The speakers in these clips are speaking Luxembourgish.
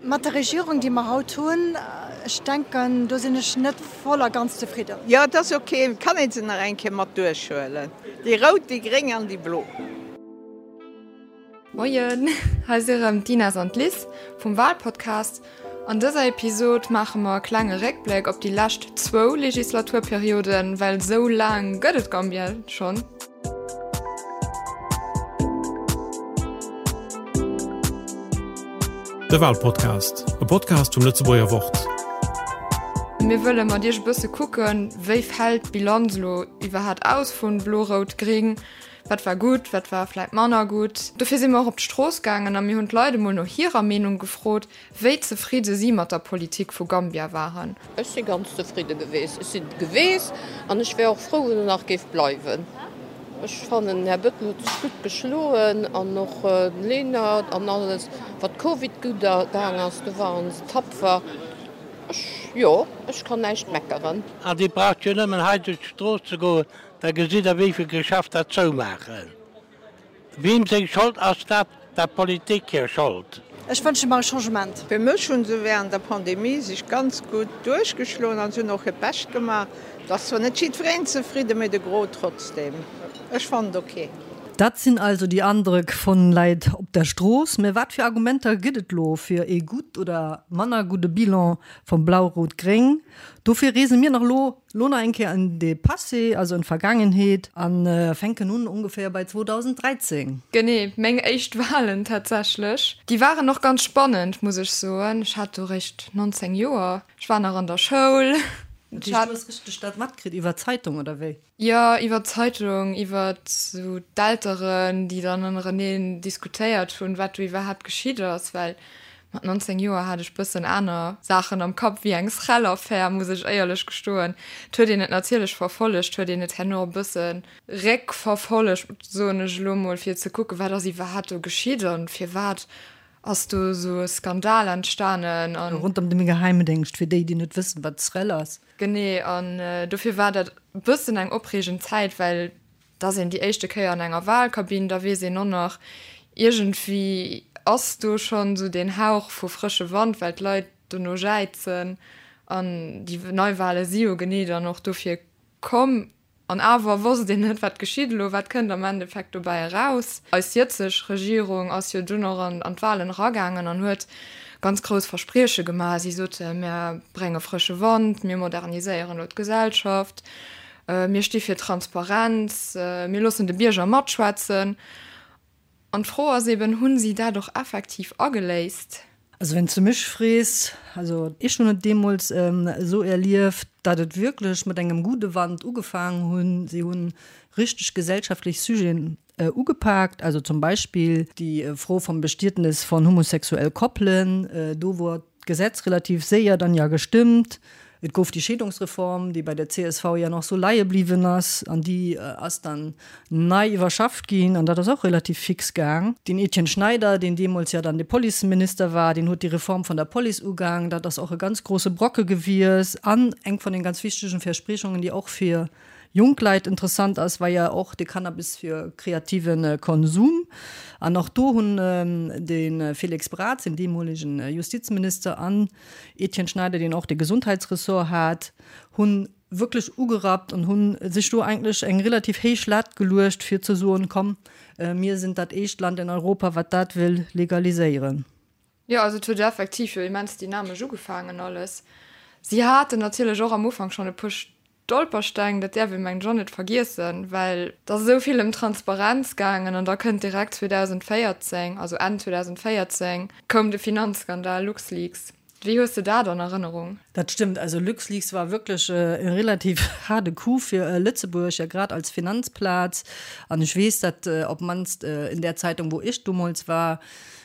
Mat der Regierung, déi mer haut hunn, ech denken, do sinn ech net voll a ganz zefridden. Jo, et ass ok, et kann ee se nach eng Kéier mat duerchhuelen, déi rout, déi gréng an déi blo. Moien, hei si rëm d'Ines an d'Liz vum Walpodcast. An dëser Episod maache mer e klenge Réckbléck op déi lescht zwou Legislaturperioden, well sou laang gëtt et Gambia schonn. De Walpodcast, e Podcast vum Lëtzebuerger Wort. Mir wëlle mat iech e bësse kucken, wéi fält d'Bilanz elo iwwerhaat aus vun Blo-Rout-Gring? Wat war gutt, wat war vläit manner gutt? Dofir si mer och op d'Strooss gaangen a mir hunn d'Leit emol no hirer Meenung gefrot, wéi zefridde si mat der Politik vu Gambia waren. Ech si ganz zefridde geweest. Ech sinn et geweest an ech wär och frou, wann en nach géif bleiwen. Ech fannen, den Här Bettel huet sech gutt geschloen an och den Lenert an alles. Wat Covid gutt gaang ass, do waren se tapfer. Ech, jo, ech kann näischt meckeren. An Dir braucht jo nëmmen hei duerch d'Strooss ze goen, Da gesitt Der, wéi vill Geschäfter zoumaachen. Wiem seng Schold ass dat? Der Politik hir Schold. Ech wënsche mer e Changement. Fir mech hu se während der Pandemie sech ganz gutt duerchgeschloen an se hunn och hiert Bescht gemaach. Et ass zwar net jiddwereen zefridden, mee de Gros trotzdem. Ech fannen et ok. Dat sinn also déi Andrëck von Leit op der Strooss. Mä wat fir Argumenter gëtt et lo fir ee gutt oder manner gudde Bilan vum Blau-Rot-Gréng? Dofir reese mir nach lo Lo nach eng Kéier en de Passé, also en d'Vergaangenheet, an fänken un ongeféier bei 2013. Genee, meng éischt Walen tatsächlech. Déi waren och ganz spannend, muss ech soen. Ech hat do réischt 19 Joer, ech war nach an der Schoul. Dat heescht, du hues richteg dat matkritt iwwer d'Zeitung, oder wéi? Jo, iwwer d'Zeitung, iwwer esou d'Elteren, déi dann ënnereneen diskutéiert hunn, wat do iwwerhaapt geschitt ass, well Mat 19 Joer hat ech bëssen aner Saachen am Kapp wéi eng Srel-Affär, muss ech éierlech gestoen. Et huet een et natierlech verfollegt, huet een et herno e bësse réckverfollegt, soen ech elo mol, fir ze kucken, wat ass iwwerhaapt do geschitt an firwat ass do esou e Skandal entstanen. An. Rondëm de Geheimdéngscht, fir déi, déi net wëssen, wat d'Srel ass. Genee, an dofir war dat e bëssen eng opreegend Zäit, well Da ass een déi éischte Kéier an enger Wahlkabinn, da weess een och nach, iergendwéi ass do schonn esou deen Hauch vu frësche Wand, well d'Leit dono jäizen. An déi Neiwahle si jo genee dann och dofir komm. An awer wosst een net, wat geschitt elo, wat kënnt am Endeffekt dobäi eraus. Eis jëtzeg Regierung ass jo dunn och an d'Wahlen eragaangen an huet ganz grouss Versprieche gemaach. Si sote, mir brénge frësche Wand, mir moderniséieren elo d'Gesellschaft. Mir sti fir Transparenz, mir loossen de Bierger matschwätzen. An d'Fro ass eben, Hunn si dat och effektiv ageléist? Also wann s de mech frees, also ech hunn et deemools esou erlieft, datt et wierklech mat engem gudde Wand ugefaangen hunn. Si hunn richteg gesellschaftlech Sujeten ugepaakt, also zum Beispill déi Fro vum Bestietnes von homosexuell Koppelen, do wor d'Gesetz relativ séier dann ja gestëmmt. Et gouf déi Scheedungsreform, déi bei der csv ja nach sou leie bliwwen ass, an déi ass dann nei iwwerschafft ginn, an dat ass och relativ fix gaang. Den Etienne Schneider, deen deemools ja dann de Policeminister war, deen huet déi Reform von der Police ugaang. Dat ass och e ganz grosse Brocke gewies an eng von den ganz wichtegen Verspriechungen, déi och fir jonk Leit interessant ass, war ja och de Cannabis fir kreative Konsum. An och do hunn de Félix Braz, den deemolegen Justizminister, an Etienne Schneider, deen och de Gesundheitsressort hat, hu wierklech ugerappt an hu sech do eigentlech eng relativ héich Lat geluecht, fir ze soen, komm, mir sinn dat éischt Land in Europa, wat dat wëll legaliséieren. Jo, also et huet effektiv jo immens dynamesch ugefaangen alles. Si haten natierlech och am Ufank schonn e puer Stolpersteng, dat däerf ee mengen ech och net vergiessen, well et ass esou vill ëm Transparenz gaangen an da kënnt direkt 2014, also Enn 2014 koum de Finanzskandal LuxLeaks. Wéi hues de dat an Erënnerung? Dat stëmmt, also LuxLeaks war wierklech e relativ haarde Coup fir Lëtzebuerg, ja grad als Finanzplaz. An ech weess, dat op d'mannst in där Zeitung, wou ech domols war,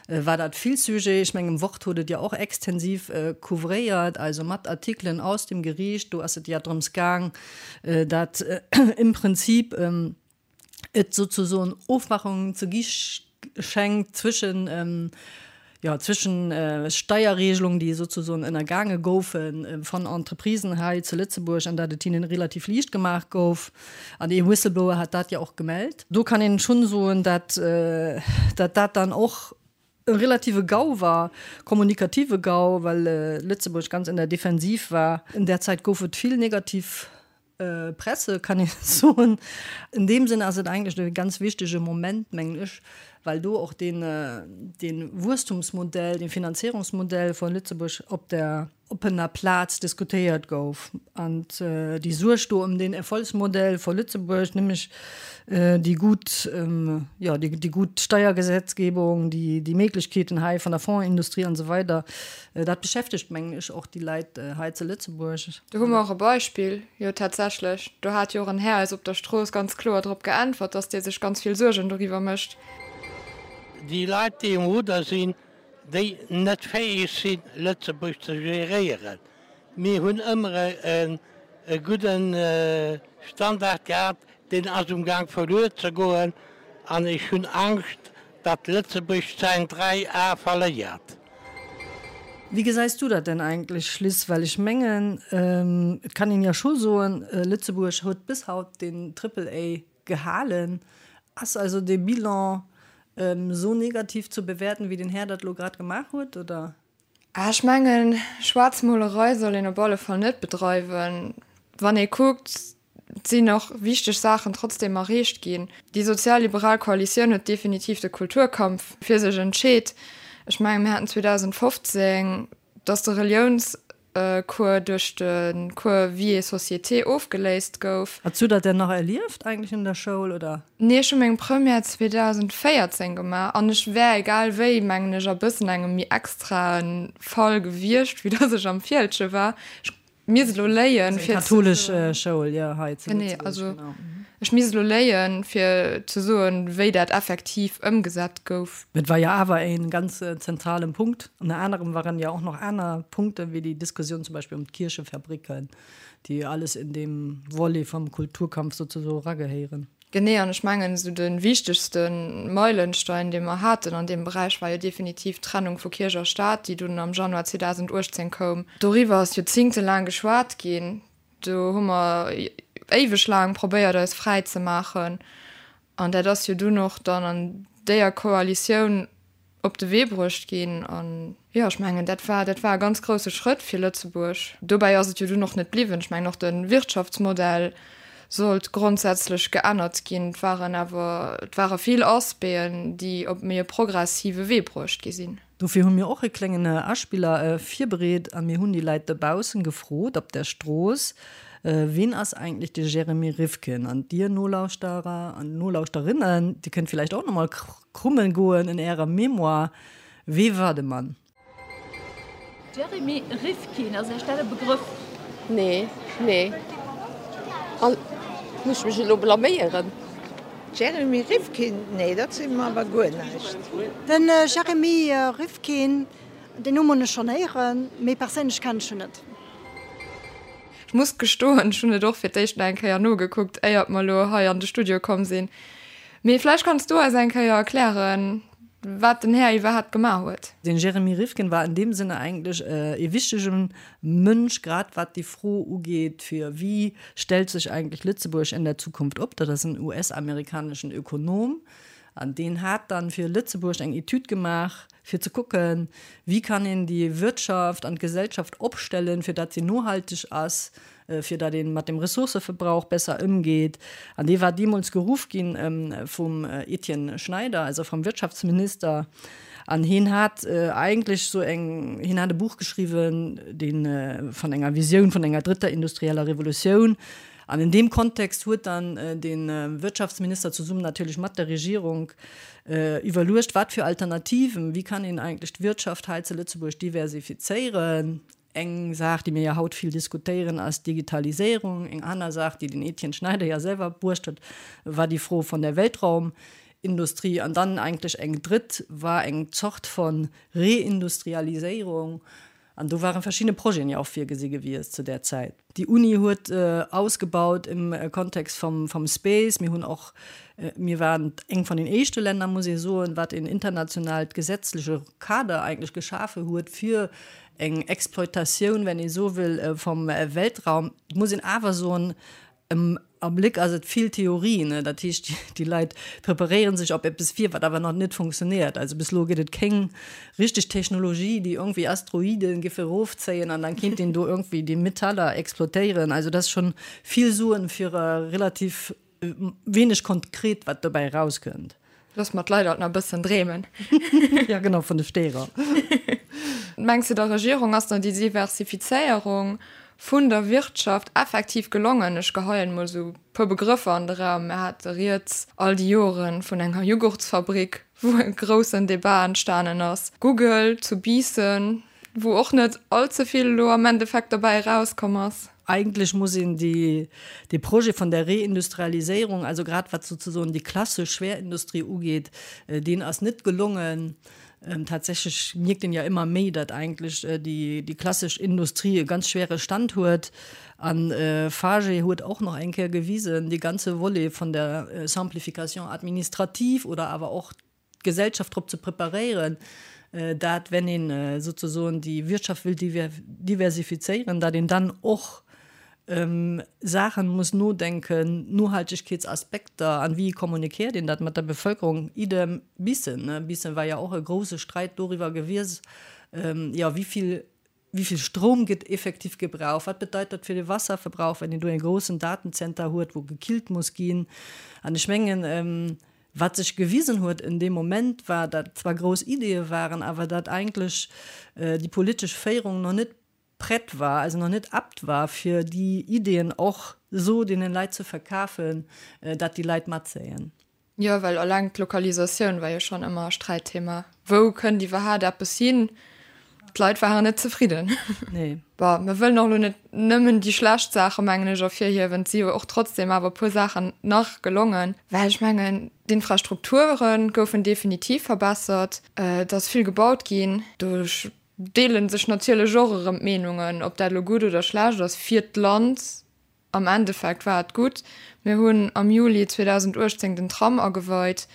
war dat vill Sujet. Ech mengen, Wort huet et jo och extensiv couvréiert, also mat Artikelen aus dem Geriicht. Do ass et ja drëms gaang, dat im Prinzip et sozusoen Ofmachungen ze gi schenkt zwëschen, Jo, zwischen Steierregelungen, déi sozusoen ënnergaange goufe van Entreprisen hei zu Lëtzebuerg an dat et hinnen relativ liicht gemaach gouf. An ee Whistleblower hat dat jo och gemellt. Do kann een schonn soen, dat dat dat dann och e relative Gau war, kommunikative Gau, well Lëtzebuerg ganz in der Defensiv war. In där Zäit gouf et vill negativ Presse, kann ee soen. In deem Sënn ass et eigentlech e ganz wichtege Moment, mengen ech, well do och deen, dee Wuesstumsmodell, dee Finanzierungsmodell vu Lëtzebuerg op der oppener Plaz diskutéiert gouf. An déi Suerg do ëm deen Erfolgsmodell vu Lëtzebuerg, nämlech déi gutt, jo, déi gutt Steiergesetzgebung, déi, déi Méiglechkeeten hei vun der Fondsindustrie an esou weider, Dat beschäftegt, mengen ech, och déi Leit hei zu Lëtzebuerg. Do hu mer och e Beispill, jo tatsächlech, do hat jo och en Här eis op der Strooss ganz kloer drop geäntwert, dass dee sech ganz vill Suergen doriwwer mécht. Déi Leit, déi um Rudder sinn, déi net fäeg sinn, Lëtzebuerg ze geréieren. Mir hunn ëmmer e gudden Standard gehat, deen ass um Gaang verluer ze goen an ech hunn Angscht, datt Lëtzebuerg säin 3 A verléiert. Wéi gesäis du dat denn eigentlech, Liz? Well ech mengen, et kann een jo scho soen, Lëtzebuerg huet bis haut den Triple A gehalen. Ass also dee Bilan esou negativ ze bewäerten, wéi den Här dat elo grad gemaach huet, oder? Ech mengen, Schwaarzmolerei soll een op alle Fall net bedreiwen. Wann ee kuckt, Et sinn och wichteg Saachen trotzdeem erreecht ginn. Déi sozialliberal Koalitioun huet definitiv de Kulturkampf fir sech entscheet. Ech mengen, mir haten 2015, datt de Reliounscours duerch de Cours Vie et société ofgeléist gouf. Hues du dat denn nach erlieft eigentlech an der Schoul, oder? Nee, ech hu meng Première 2014 gemaach an ech wär egal wéi, mengen ech, a bëssen engem méi extrae Fall gewiescht, wéi datt ech am Fieldgen war. Ech misst elo léien fir katholisch Schoul jo hei zu Lëtzebuerg also ech misst elo léien fir ze soen wéi dat effektiv ëmgesat gouf. Et war jo awer e ganz zentralen Punkt. Ënner anerem waren jo och nach aner Punkte wéi déi Diskussioun zum Beispill ëm d'Kierchefabriken, déi alles in deem Volet vum Kulturkampf souzesoe eragehéieren. Genee, an ech mengen, esou de wichtegste Meilenstein, dee mer haten an deem Beräich, war jo definitiv d'Trennung vu Kierch a Staat, déi dunn am Januar 2018 koum. Doriwwer ass joerzingtelaang geschwat ginn. Do hu mer éiweg laang probéiert, eis fräi ze maachen. An dat ass jo dunn och dann an déier Koalitioun op de Wee bruecht ginn. An jo, ech mengen, dat war, dat war e ganz grousse Schrëtt fir Lëtzebuerg. Dobäi ass et jo dunn och net bliwwen. Ech mengen, och de Wirtschaftsmodell sollt grondsätzlech geännert ginn. Et waren awer, et ware vill Aspecten, déi op méi e progressive Wee bruecht gi sinn. Dofir hu mir och e kléngen Aspiller virbereet a mir hunn déi Leit dobaussen gefrot op der Strooss, Ween ass eigentlech de Jeremy Rifkin? An dir Nolauschterer an Nolauschterinnen, dir kënnt villäicht och nach mol Krummen goen in ärer Mémoire, Wee war de Mann? Jeremy Rifkin, ass Iech dat e Begrëff? Nee, nee. An muss ech mech elo blaméieren? Jeremy Rifkin, nee dat seet mer awer guer näischt. Den Jeremy Rifkin, deen Numm hunn ech schonn héieren, mee perséinlech kennen ech en net. Ech muss gestoen, ech hunn et och fir d'éischt nach eng Kéier nogekuckt, éiert mer elo hei an de Studio komm sinn. Mee vläicht kanns du eis eng Kéier erklären, wat den Här iwwerhaapt gemaach huet. Den Jeremy Rifkin war in dem Sinne eigentlech ee wichtege Mënsch, grad wat déi Fro ugeet, fir wéi stellt sech eigentlech Lëtzebuerg in der Zukunft op. Dat ass en US-amerikaneschen Ökonom an deen hat dann fir Lëtzebuerg eng Etüd gemaach, fir ze kucken, wéi kann een déi Wirtschaft an d'Gesellschaft opstellen, fir datt se nohalteg ass, fir datt ee mat dem Ressourcëverbrauch besser ëmgeet. An dee war deemools geruff gi vum Etienne Schneider, also vum Wirtschaftsminister. An hien hat eigentlech esou eng, hien hat e Buch geschriwwen, dee vun enger Visioun vun enger drëtter industrieller Revolutioun. An in deem Kontext huet dann de Wirtschaftsminister zesummen natierlech mat der Regierung iwwerluecht, wat fir Alternativen, wéi kann een eigentlech d'Wirtschaft hei zu Lëtzebuerg diversifizéieren. Eng Saach, déi mir jo haut vill diskutéieren, ass d'Digitaliséierung. Eng aner Saach, déi den Etienne Schneider jo selwer bruecht huet, war déi Fro vun der Weltraumindustrie. An dann eigentlech eng drëtt war eng Zort von Reindustrialiséierung. An do ware verschidde Projeten jo och virgesi gewiescht zu där Zäit. Déi Uni huet ausgebaut im Kontext vum vum Space. Mir hunn och, mir waren eng vun den éischte Länner, muss ee soen, wat een internationaalt gesetzleche Kader eigentlech geschafe huet fir eng Exploitatioun, wenn ee sou wëll, vum Weltraum. Et muss een awer soen, Am Abléck ass et vill Theorie, ne? Dat heescht, déi Leit preparéiere sech op eppes vir, wat awer nach net funktionéiert. Also bis elo gëtt et kéng richteg Technologie, déi iergendwéi Asteroide géif erofzéien an dann kéint een do iergendwéi déi Metaller exploitéieren. Also dat ass schonn vill Suen fir relativ wéineg konkret, wat dobäi erauskënnt. Loosse mer d'Leit alt nach e bëssen dreemen. Ja genau, vun de Steerer. Mengs de der Regierung ass dann déi Diversifizéierung vun der Wirtschaft effektiv gelongen? Ech geheien emol esou e puer Begrëffer an de Raum. Mir hate rieds all déi Jore vun enger Jughurtsfabrik, wou e groussen Debat entstanen ass, Google zu Biissen, wou och net all ze vill elo am Endeffekt derbäi erauskomm ass. Eigentlech muss een déi, dee Projet vun der Reindustrialiséierung, also grad wat souzesoen déi klassesch Schwerindustrie ugeet, deen ass net gelongen. Tatsächlech mierkt een jo ëmmer méi, datt eigentlech déi, déi klassesch Industrie e ganz schwere Stand huet. An FAGE huet och nach eng Kéier gewisen, dee ganze Volet vun der Simplification administrative oder awer och d'Gesellschaft drop ze preparéieren, dat wenn een souzesoen déi Wirtschaft wëll diversifizéieren, dat een dann och ëm Saachen muss nodenken, Nohaltegkeetsaspekter, an wéi kommunikéiert een dat mat der Bevölkerung, idem Bissen. Bissen war jo och e grouse Streit doriwwer gewies, jo wéi vill Wéi vill Stroum gëtt effektiv gebraucht? Wat bedeit dat fir de Wasserverbrauch, wenn een do e groussen Datenzenter huet, wou gekillt muss ginn? An ech mengen, wat sech gewisen huet en deem Moment, war, datt zwar grouss Ideeë waren, awer datt eigentlech déi politesch Féierung nach net prett war, also nach net apt war, fir déi Ideeën och esou deene Leit ze verkafen, datt déi Leit matzéien. Jo, well eleng d'Lokalisatioun war jo schonn ëmmer e Sträitthema. Wou kënnt iwwerhaat eppes hin? D'Leit waren net zefridden. Nee. Bon, mir wëllen och elo net nëmmen déi schlecht Saache, mengen ech, ervirhiewen. Et si jo och trotzdem awer e puer Saachen nach gelongen. Well ech mengen, d'Infrastrukture goufen definitiv verbessert. Et ass vill gebaut ginn. Do deele sech natierlech och erëm d'Meenungen, ob dat elo gutt oder schlecht ass fir d'Land. Am Endeffekt war et gutt. Mir hunn am Juli 2018 den Tram ageweit.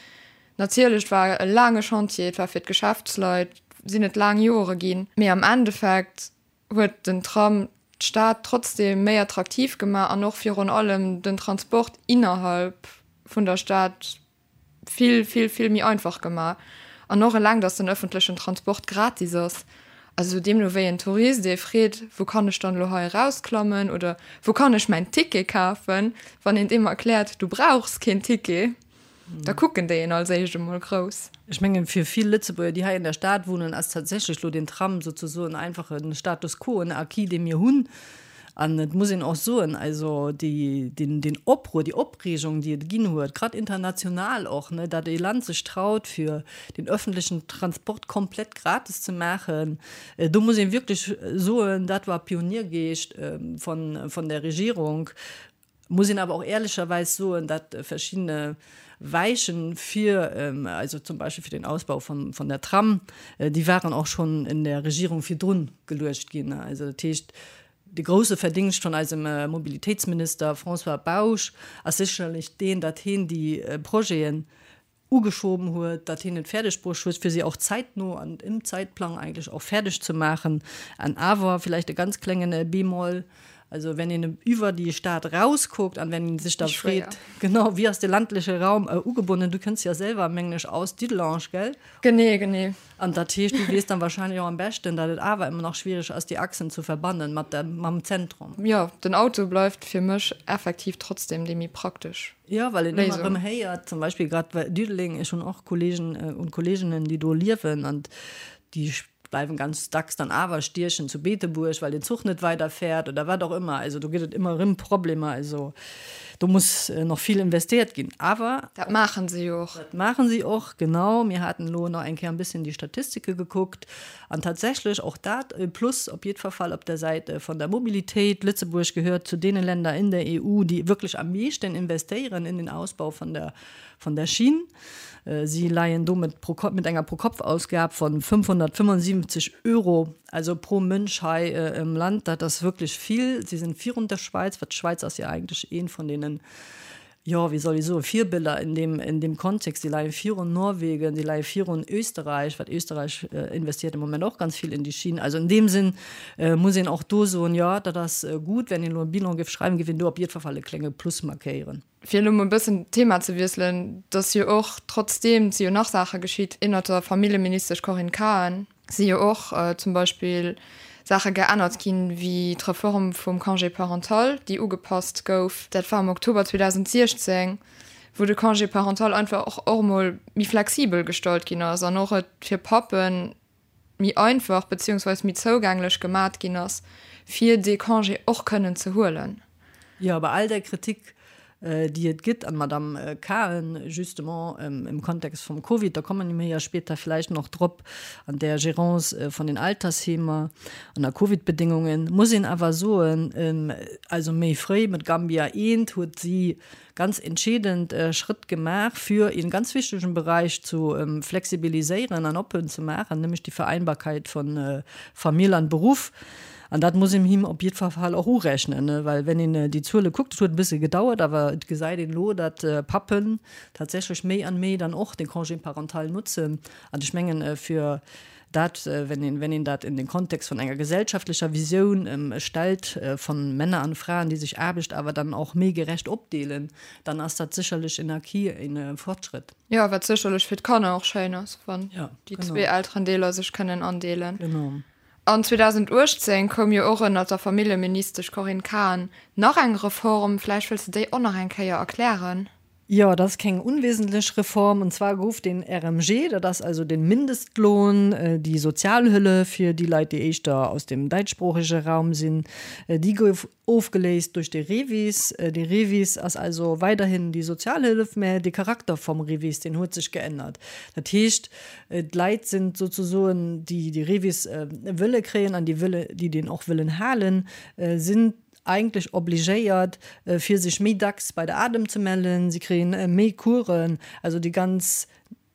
Natierlech, et war e laange Chantier, et war fir d'Geschäftsleit, sinn et laang Jore ginn. Mee am Endeffekt huet den Tram d'Stad trotzdeem méi attraktiv gemaach an och virun allem den Transport innerhalb vun der Stad vill, vill, vill méi einfach gemaach. An och eleng, dass den öffentlechen Transport gratis ass. Also deemno wéi en Tourist ee freet, wou kann ech dann elo hei erausklammen oder wou kann ech mäin Ticket kafen, wann een deem erkläert, du brauchs keen Ticket, da kucken déi een als éischt emol grouss. Ech mengen, fir vill Lëtzebuerger, déi hei an der Stad wunnen, ass tatsächlech elo den Tram souzesoen einfach e Status quo, en Acquis, dee mir hunn. An et muss een och soen, also déi, deen, deen Opruer, déi Opreegung, déi et ginn huet, grad international och, ne, datt ee Land sech traut, fir den öffentlichen Transport komplett gratis ze maachen, do muss ee wierklech soen, dat war Pioniergeescht von, von der Regierung. Muss een awer och ehrlecherweis soen, datt verschiddene Weichen fir, also zum Beispill fir den Ausbau von, von der Tram, déi waren och schonn in der Regierung virdrun geluecht ginn. Also dat heescht, de grouse Verdingscht von eisem Mobilitéitsminister François Bausch ass sécherlech deen, datt heen déi Projeten ugeschoben huet, datt hien et fäerdeg bruecht huet, fir se och zäitno an im Zeitplang eigentlech och fäerdeg ze maachen. An awer villäicht e ganz klengen Bémol, also wenn een iwwer déi Stad erauskuckt an wenn ee sech da freet, genau, wéi ass de landleche Raum ugebonnen, du kënns jo selwer, mengen ech, aus Dudelange, gell? Genee, genee. An dat heescht, du weess dann wahrscheinlech och am beschten, datt et awer ëmmer nach schwierig ass, déi Achsen ze verbannen mat der, mam Zentrum. Jo, den Auto bleift fir mech effektiv trotzdem déi méi praktesch. Jo, well een ëmmer erëm héiert, zum Beispill grad bei Diddeleng, ech hunn och Kollegen und Kolleginnen, déi do liewen an déi bleiwen ganz dacks dann awer stiechen zu Beetebuerg, well den Zuch net weiderfäert oder wat och ëmmer. Also do gëtt et ëmmer erëm Problemer. Also do muss nach vill investéiert ginn. Awer. Dat maachen se jo och. Dat maachen si och, genau. Mir haten elo nach eng Kéier e bësschen déi Statistike gekuckt. An tatsächlech och dat e Plus op jiddfer Fall op der Säit von der Mobilitéit. Lëtzebuerg gehört zu deene Länder in der EU, déi wierklech am meeschten investéieren in den Ausbau von der, von der Schinn. Si leien domat pro Kopp mit enger Pro-Kopf-Ausgab von 575 Euro, also pro Mënsch hei im Land. Dat ass wierklech vill. Si sinn virun der Schwäiz, wat d'Schwäiz ass jo eigentlech eent vun deenen, jo, wéi soll ech soen, Virbiller in deem, in deem Kontext. Si leie virun Norwegen, si leie virun Österreich, wat Österreich investiert im Moment och ganz vill in die Schienen. Also in deem Sinn muss een och do soen, jo, dat ass gutt. Wenn een elo e Bilan géif schreiwen, géif een do op jiddwer Fall e klénge Plus markéieren. Fir elo mol e bëssen d'Thema ze wiesselen, et ass jo och, trotzdeem, et si jo nach Saache geschitt ënnert der Familljeministesch Corinne Cahen, si jo och zum Beispill Saache geännert ginn, wéi d'Reform vum Congé parental, déi ugepasst gouf. Dat war am Oktober 2016, wou de Congé parental einfach och och emol méi flexibel gestallt ginn ass an och et fir Pappen méi einfach beziehungsweis méi zougänglech gemat ginn ass, fir dee Congé och kënnen ze huelen. Jo, bei all där Kritik, déi et gëtt, an d'Madame Cahen justement im Kontext vum Covid, da komme mir jo später vläicht nach drop, an där Gérance vun den Altersheemer ënner Covidbedéngungen, muss een awer soen, also méi fréi mat Gambia I huet si ganz entscheedend Schrëtt gemaach, fir een ganz wichtegen Beräich zu flexibiliséieren an oppen ze maachen, nämlech déi Vereinbarkeit von Famill an Beruff. An dat muss een him op jiddwer Fall och urechnen, well wenn een déi Zuele kuckt, et huet e bësse gedauert, awer et gesäit een elo, datt Pappen tatsächlech méi an méi dann och de Congé parental nutzen. An ech mengen, fir Dat, wenn een, wenn een dat in den Kontext von enger gesellschaftlecher Visioun stellt, von Männer an Fraen, déi sech Aarbecht awer dann och méi gerecht opdeelen, dann ass dat sécherlech en Acquis, e Fortschrëtt. Jo, wat sécherlech fir d'Kanner och schéin ass, wann déi zwee Elterendeeler sech kënnen andeelen. Genau. An 2018 koum jo och ënnert der Familljeministesch Corinne Cahen nach eng Reform. Vläicht wëlls de déi och nach eng Kéier erklären? Jo, dat ass keng unwesentlech Reform. Und zwar gouf den RMG, dat ass also den Mindestlohn, déi Sozialhëllef fir déi Leit, déi éischter aus dem däitschsproochege Raum sinn, déi gouf ofgeléist duerch de REVIS. De REVIS ass also weiderhin déi Sozialhëllef, mä de Charakter vum REVIS, deen huet sech geännert. Dat heescht, d'Leit sinn sozesoen, déi de REVIS wëlle kréien an déi wëlle, déi deen och wëllen halen, sinn eigentlech obligéiert, fir sech méi dacks bei der ADEM ze mellen. Si kréien méi Coursen. Also déi ganz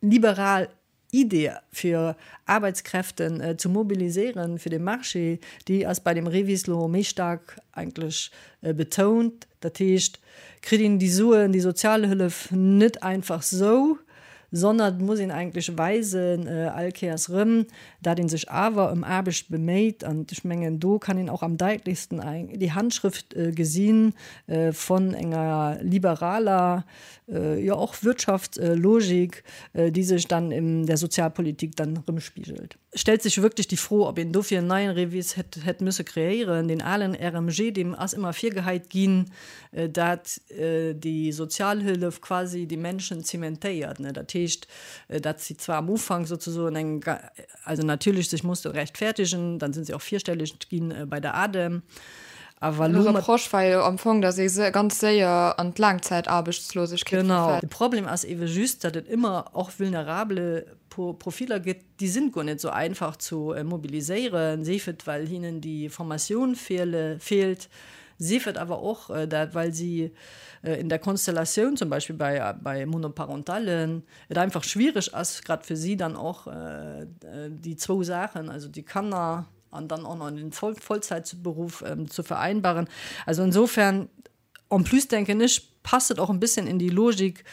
liberal Idee, fir Arbeitskräften ze mobiliséieren fir de Marché, déi ass bei dem REVIS lo méi staark eigentlech betount. Dat heescht, kritt een déi Suen, déi Sozialhëllef net einfach sou, sondern et muss een eigentlech weisen, all Kéiers erëm, dat ee sech awer ëm Aarbecht beméit. An ech mengen, do kann een och am daitlechsten déi Handschrëft gesi vun enger liberaler, jo och Wirtschaftslogik, déi sech dann in der Sozialpolitik dann erëmspigelt. Stellt sech wierklech déi Fro, ob een dofir en neien REVIS hätt hätt müsse kreéieren. Deen alen RMG, deem ass ëmmer virgeheit ginn, dat déi Sozialhëllef quasi déi Menschen zementéiert. Dat heescht, dat si zwar am Ufank sozesoen eng, also natierlech sech musste rechtfertigen, dann sinn se och virstelleg ginn bei der ADEM, awer elo mat. De Reproche war jo am Fong, datt ee ganz séier an d'Laangzäitaarbechtslosegkeet verfält. Genau. De Problem ass ewe just, datt et ëmmer och vulnerable Profiller gëtt, déi sinn guer net sou einfach zu mobiliséieren, sief et well hinnen déi Formatioun feelt, sief et awer och dat well si in der Konstellatioun, zum Beispill bei bei Monoparentalen, et einfach schwiereg ass grad fir si dann och déi zwou Saachen, also déi Kanner an dann och nach den Vollzäitberuff zu vereinbaren. Also insofern En plus denken ech, passt et och en bisschen in die Logik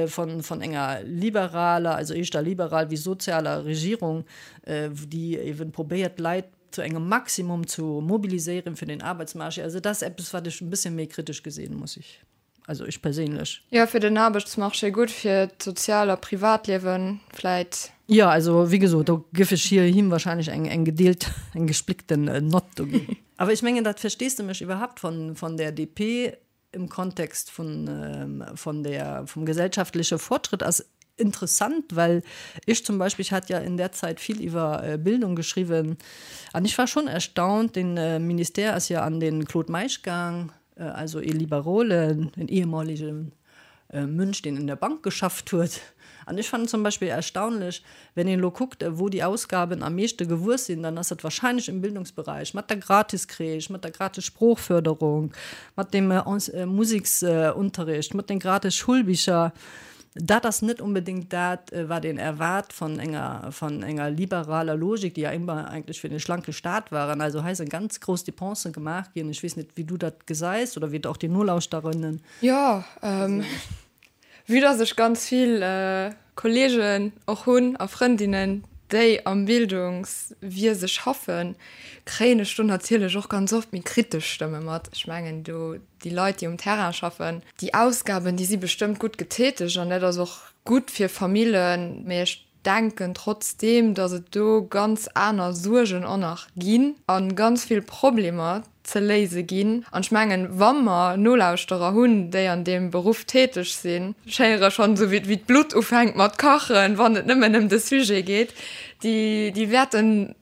von, von enger liberaler, also éischter liberal wéi sozialer Regierung, déi eben probéiert d'Leit zu engem Maximum zu mobiliséieren fir den Arbeitsmarché. Also dat ass eppes wat ech en bisschen méi kritesch gesinn, muss ech, also ech perséinlech. Jo, fir den Aarbechtsmarché gutt, fir d'Sozial a Privatliewen vläit. Jo, also wéi gesot, do géif ech hir, him wahrscheinlech eng, eng gedeelt, eng gespléckten Nott do ginn. Awer ech mengen, dat Versteesdemech iwwerhaupt von, von der DP im Kontext von, von der, vum gesellschaftleche Fortschritt ass interessant, well ech zum Beispill, ich hat ja in der Zeit viel iwwer Bildung geschriwwen, an ech war schon erstaunt, den Ministère ass ja an den Claude Meisch gaang, also ee Liberole, en ehemaligen Mönch, deen in der Bank geschafft huet. An ech fannen zum Beispill erstaunlech, wenn een elo kuckt, wou déi Ausgaben am meeschte gewuess sinn, dann ass dat wahrscheinlech im Bildungsbereich, mat der Gratiscrèche, mat der gratis Sproochförderung, mat dem Musiksunterricht, mat den gratis Schulbicher. Dat ass net onbedéngt dat, wat een erwaart von enger, von enger liberaler Logik, déi ja ëmmer eigentlech fir den schlanke Staat waren. Also hei sinn ganz grouss Dépensen gemaach ginn. Ech weess net, wéi du dat gesäis oder wéi et och déi Nolauschterinnen. Jo, vue dass ech ganz vill Kollegen och hunn a Frëndinnen, déi am Bildungswiese schaffen, kréien ech do natierlech och ganz oft méi kritesch Stëmme mat. Ech mengen do, déi Leit, déi um Terrain schaffen, déi Ausgaben, déi si bestëmmt gutt getätegt an dat ass och gutt fir Famillen, mee ech denken trotzdeem, datt et do ganz aner Suergen och nach ginn a ganz vill Problemer ze léise ginn. An ech mengen, wa mer Nolauschterer hunn, déi an deem Beruff täteg sinn, ech héiere schonn esou wéi d'Blutt ufänkt mat kachen, wann et nëmmen ëm de Sujet geet, déi, déi wäerten,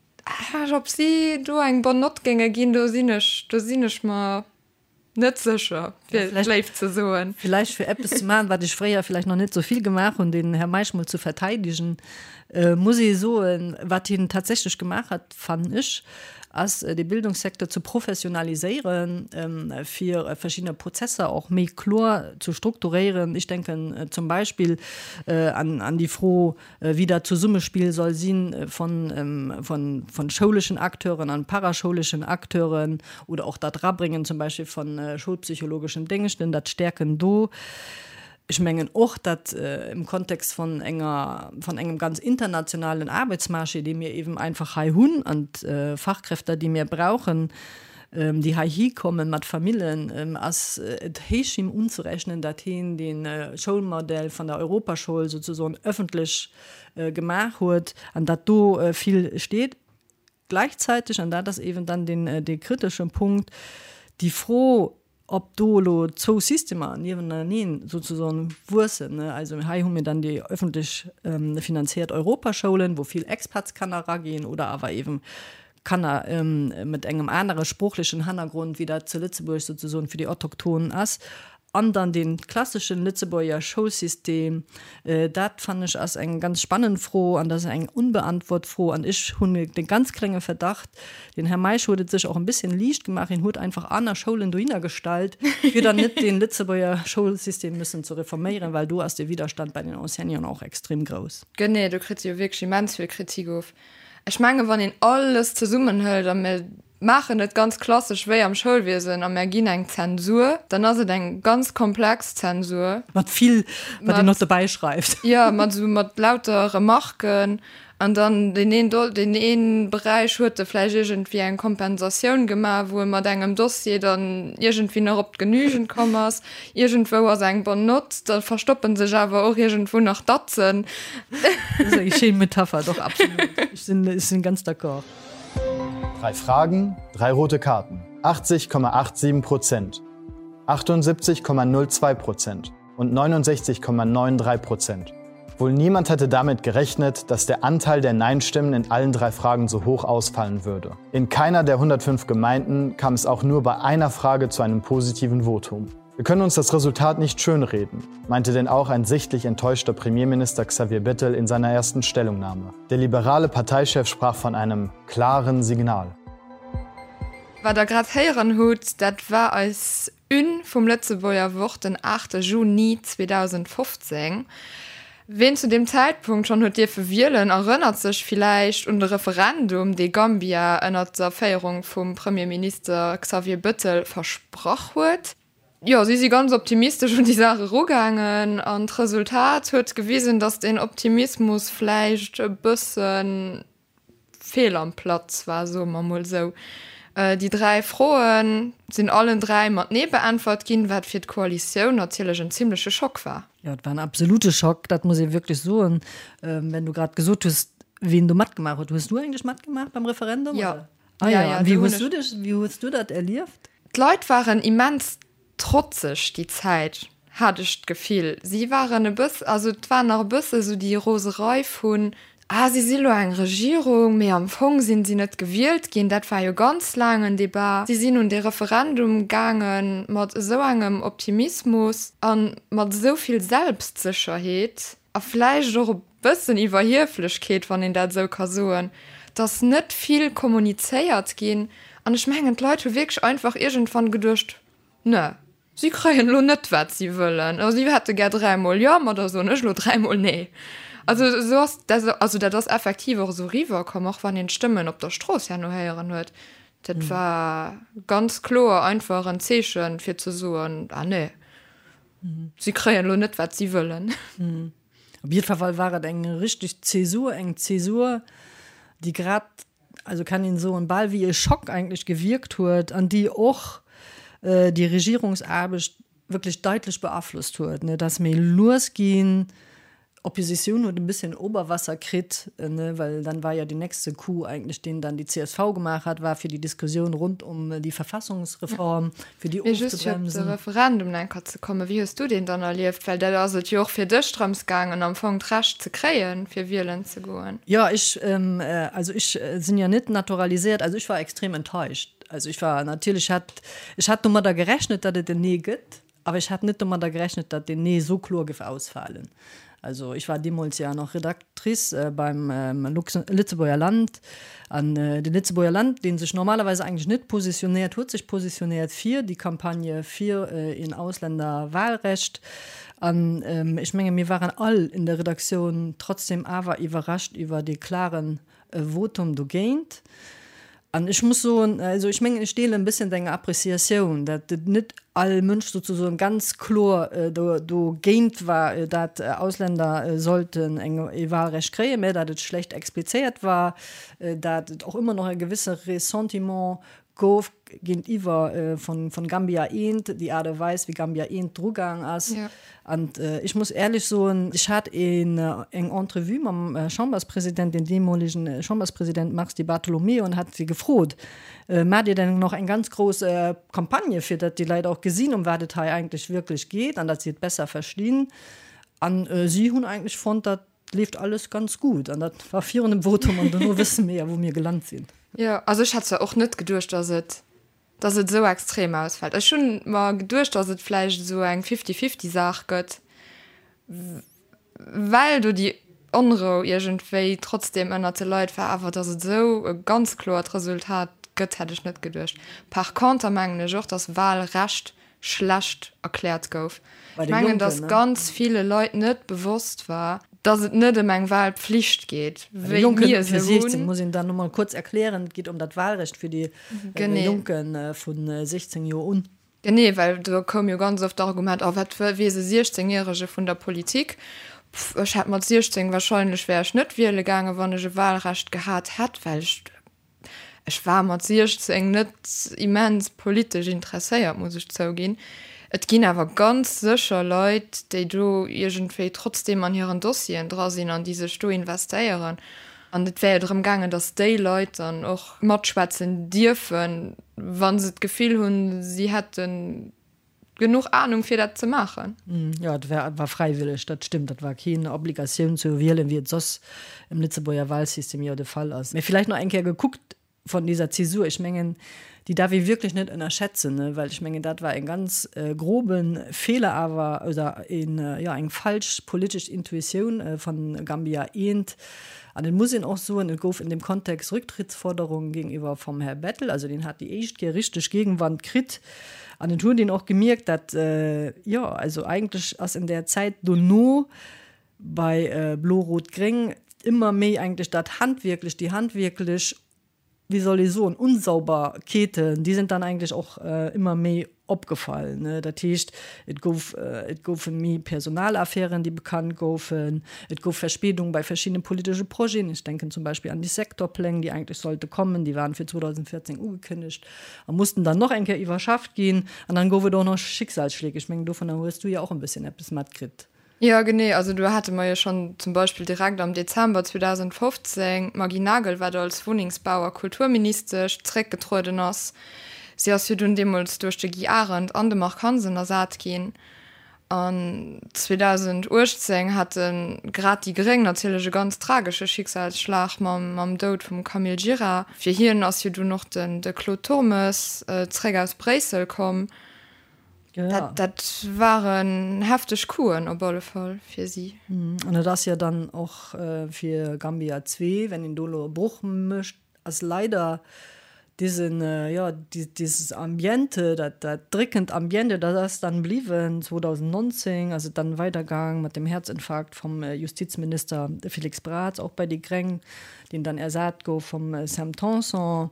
ob si do eng bonne Note géinge ginn, do sinn ech, do sinn ech mer Net sécher, fir et léif ze soen. Villäicht fir eppes ze maachen, wat ech fréier villäicht nach net esou vill gemaach hunn, den Här Meisch mol ze verteidegen, muss ee soen, wat hien tatsächlech gemaach hat, fannen ech, ass de Bildungssecteur ze professionaliséieren, fir verschiddener Prozesser och méi kloer ze strukturéieren. Ech denken zum Beispill an déi Fro, wéi dat Zesummespill soll si von schouleschen Acteuren an paraschouleschen Acteuren oder och dat Erabréngen zum Beispill von schoulpsychologeschen Déngschten, dat Stäerken do. Ech mengen och, dat im Kontext von enger, von engem ganz internationalen Aarbeitsmarché, dee mir eben einfach hei hunn, an d'Fachkräfter, déi mir brauchen, déi heihi kommen mat Famillen, ass et héich him unzerechnen, datt hien dee Schoulmodell van der Europaschoul souzesoen öffentlech gemaach huet an datt do vill steet. Gleichzeitig, an dat ass eeben dann deen, dee kriteschen Punkt, déi Fro, ob do elo zwou Systemer nieweneneen souzesoen wuessen, also hei hu mir dann déi öffentlech finanziert Europaschoulen, wou vill Expatskanner eraginn oder awer eeben Kanner mat engem anere sproochlechen Hannergrond, wéi dat zu Lëtzebuerg souzesoen fir déi Autochtonen ass, an dann dee klasseschen Lëtzebuerger Schoulsystem, dat fannen ech ass eng ganz spannend Fro an dat ass eng unbeantwort Fro. An ech hunn de ganz klenge Verdacht, den Här Meisch huet et sech och en bisschen liicht gemaach, hien huet einfach aner Schoulen dohinner gestallt, fir dann net dee Lëtzebuerger Schoulsystem müssen ze reforméieren, well do ass de Widerstand bei den Enseignanten och extrem grouss. Genee, do kritt se jo wierklech immens vill Kritik of. Ech menge wann een alles zesummenhëlt a mir maachen et ganz klassesch wéi am Schoulwiesen a mär ginn eng Zensur, dann ass et eng ganz komplex Zensur. Mat vill, wat een och dobäi schreift. Jo, mat esou mat lauter Remarken an dann deen een Do, deen ee Beräich huet e vläicht iergendwéi eng Kompensatioun gemaach, wou e mat engem Dossier dann iergendwéi nach op d'Genügend komm ass. Iergendwou ass eng bonne note, da verstoppen sech awer och iergendwou nach Datzen. Dat ass eng schéin Metapher, doch absolut. Ech sinn, ech sinn ganz d'accord. Drei Fragen, drei rote Karten. 80,87 Prozent, 78,02 Prozent und 69,93 Prozent. Wohl niemand hätte damit gerechnet, dass der Anteil der Nein-Stimmen in allen drei Fragen so hoch ausfallen würde. In keiner der 105 Gemeinden kam es auch nur bei einer Frage zu einem positiven Votum. Wir können uns das Resultat nicht schönreden, meinte denn auch ein sichtlich enttäuschter Premierminister Xavier Bettel in seiner ersten Stellungnahme. Der liberale Parteichef sprach von einem klaren Signal. Wat der grad héieren hutt, dat war eis Une vum Lëtzebuerger Wort den 8 Juni 2015. Ween zu deem Zäitpunkt schonn huet dierfe wielen, erënnert sech villäicht un de Referendum, dee Gambia ënnert der Féierung vum Premierminister Xavier Bëttel versprach huet. Jo, si si ganz optimistesch un déi Saach erugaangen an d'Resultat huet gewisen, datt deen Optimismus vläicht e bëssen fehl am Platz war, soe mer mol esou. Déi 3 Froe sinn allen 3 mat Nee beäntwert ginn, wat fir d'Koalitioun natierlech en zimmleche Schock war. Jo, et war en absolute Schock, dat muss ee wierklech soen. Wenn du grad gesot hues, wien do matgemaach huet, hues du eigentlech matgemaach beim Referendum? Jo. Ah jo, an wéi hues du dech, wéi hues du dat erlieft? D'Leit waren immens Trotzeg déi Zäit, hat ech d'Gefill. Si waren e bëss, also et war nach e bësse sou déi Roserei vun, ah si si lo eng Regierung, mee am Fong sinn si net gewielt ginn. Dat war jo ganz laang en Debat. Si sinn un dee Referendum gaange mat esou engem Optimismus a mat esou vill Selbstsécherheet a vläicht och e bëssen Iwwerhieflechkeet, wann een dat esou ka soen, dass net vill kommunizéiert ginn. An ech mengen, d'Leit hu wierklech einfach iergendwann geduecht, Ne. Si kréien elo net, wat si wëllen. Also si hätte gär dräimol Jo, ma da soen ech elo dräimol Nee. Also esou ass dat, also dat ass effektiv och esou eriwwerkomm, och wann een d'Stëmmen op der Strooss herno héieren huet. Dat war ganz kloer einfach en Zeechen, fir ze soen, Ah nee, si kréien elo net, wat si wëllen. Op jiddwer Fall war et eng richteg Zäsur, eng Zäsur, déi grad also kann een soen, bal wéi e Schock eigentlech gewierkt huet an déi och déi Regierungsaarbecht wierklech daitlech beaflosst huet. Et ass méi lues ginn, d'Oppositioun huet e bësschen Oberwasser kritt, well dann war jo deen nächste Coup eigentlech, deen dann déi csv gemaach hat, war fir déi Diskussioun rund um déi Verfassungsreform, fir déi Mee just fir op de ofzebremsen. Referendum eng Kéier ze kommen, wéi hues du deen dann erlieft? Well dat ass et jo och fir dech drëms gaangen am Fong d'Recht ze kréien, fir wielen ze goen. Jo, ech, also ech sinn jo net naturaliséiert, also ech war extrem enttäuscht. Also ech war natierlech, hat, ech hat domadder gerechnet, datt et en Nee gëtt, Awer ech hat net domadder gerechnet, datt deen Nee esou kloer géif ausfalen. Also ech war deemools jo nach Redactrice beim Lëtzebuerger Land. An de Lëtzebuerger Land, dee sech normalerweis eigentlech net positionéiert, huet sech positionéiert fir déi Campagne fir een Ausländerwahlrecht. An ech menge mir waren all in der Redaktioun trotzdem awer iwwerrascht iwwer dee klaren e Votum dogéint. An ech muss soen, also ech mengen, ech deelen e bësschen deng Appréciatioun, dat et net all Mënsch sozusagen ganz kloer dogéint war, dat Ausländer sollten eng e Wahlrecht kréien, mä dat et schlecht explizéiert war, dat et och ëmmer nach e gewësse Ressentiment gouf géintiwwer vun Gambia I, déi Aart a Weis, wéi Gambia I drugaang ass. An ech muss éierlech soen, ech hat eng Entrevue mam Chamberspresident, dem deemolegen Chamberspresident Mars Di Bartolomeo, an hat si gefrot, Maacht Dir denn nach eng ganz grouss Campagne, fir datt déi Leit och gesinn, ëm wat et hei eigentlech wierklech geet an datt si et besser verstinn? An si hunn eigentlech fonnt, datt Leeft alles ganz gut an dat war virun dem Votum an dono wësse mir ja wou mir gelant sinn. Jo, also ech hätt zwar och net geduecht, dass et, dass et esou extrem ausfällt. Ech hunn mer geduecht, dass et vläicht esou eng Fifty-fifty-Saach gëtt, well do déi Onrou iergendwéi trotzdem ënnert de Leit war, awer dass et esou e ganz kloert Resultat gëtt, hätt ech net geduecht. Par conter mengen ech och, dass Wahlrecht schlecht erkläert gouf. Ech mengen, datt ganz ville Leit net bewosst war, datt et net ëm eng Wahlpflicht geet, wéi mir se hunn. Muss een dann no mol kuerz erklären, et geet ëm dat Wahlrecht fir déi Jonke vu 16 Joer un. Genee, well do koum jo ganz oft d'Argument, oh wat weess e 16 Järege vun der Politik? Pff, ech hätt mat 16 wahrscheinlech wär ech net wiele gaangen, wann ech e Wahlrecht gehat hätt, well ech Ech war mat 16 net immens politesch interesséiert, muss ech zouginn. Et ginn awer ganz sécher Leit, déi do iergendwéi trotzdeem an hiren Dossieren dra sinn an déi sech do investéieren. An et wär jo drëm gaangen, datt déi Leit dann och matschwätzen dierfen, wa se d'Gefill hunn, si hätten Genuch Ahnung fir dat ze maachen. Jo, et war war fräiwëlleg, dat stëmmt. Dat war keen Obligatioun ze wielen, wéi et soss im Lëtzebuerger Wahlsystem jo de Fall ass. Mee villäicht nach eng Kéier gekuckt von dieser Zäsur, ech mengen, déi darf ee wierklech net ënnerschätzen, ne, well ech mengen, dat war en ganz grobe Feeler awer oder een, jo, eng falsch politesch Intuitioun von Gambia I. An et muss een och soen, et gouf in dem Kontext Rücktrittsforderungen gegenüber vom Här Bettel, also deen hat déi éischt Kéier richteg Gegenwand kritt. An et huet een och gemierkt, dat, jo, also eigentlech ass in der Zäit dono bei Blo-Rot-Gréng ëmmer méi eigentlech dat handwierklech, déi handwierklech, wéi soll ee soen, Unsauberkeeten, déi sind dann eigentlech och ëmmer méi opgefall. Dat heescht, et gouf, et goufe méi Personalaffären, déi bekannt goufen, et gouf Verspädung bei verschiddene politesche Projeten, ech denken zum Beispill an déi Sektorpläng, déi eigentlech sollte kommen, déi waren fir 2014 ugekënnegt a mussten dann noch eng Kéier iwwerschafft ginn. An dann gouf et och noch Schicksalsschläge. Ech mengen, dovunner hues du jo och en bësschen eppes matkritt. Jo, genee. Also do hate mer jo schonn zum Beispill direkt am Dezember 2015 d'Maggy Nagel, wat als Wunnengsbau a Kulturministesch zréckgetrueden ass. Si ass jo dunn deemools duerch de Guy Arendt an de Marc Hansen ersat ginn. An 2018 hate grad déi Gréng natierlech e ganz tragesche Schicksalsschlag mam Doud vum Camille Gira. Fir hien ass jo dunn och de Claude Turmes zréck aus Bréissel komm. Dat waren hefteg Couen op alle Fall fir si. An et ass jo dann och fir Gambia 2, wenn een do elo e Broch mécht, ass leider. Diesen, jo, dieses Ambiente, dat, dat dréckend Ambiente, dat ass dann bliwwen. 2019 ass et dann weidergaang mat dem Herzinfarkt vum Justizminister Félix Braz, och bei déi Gréng, deen dann ersat gouf vum Sam Tanson.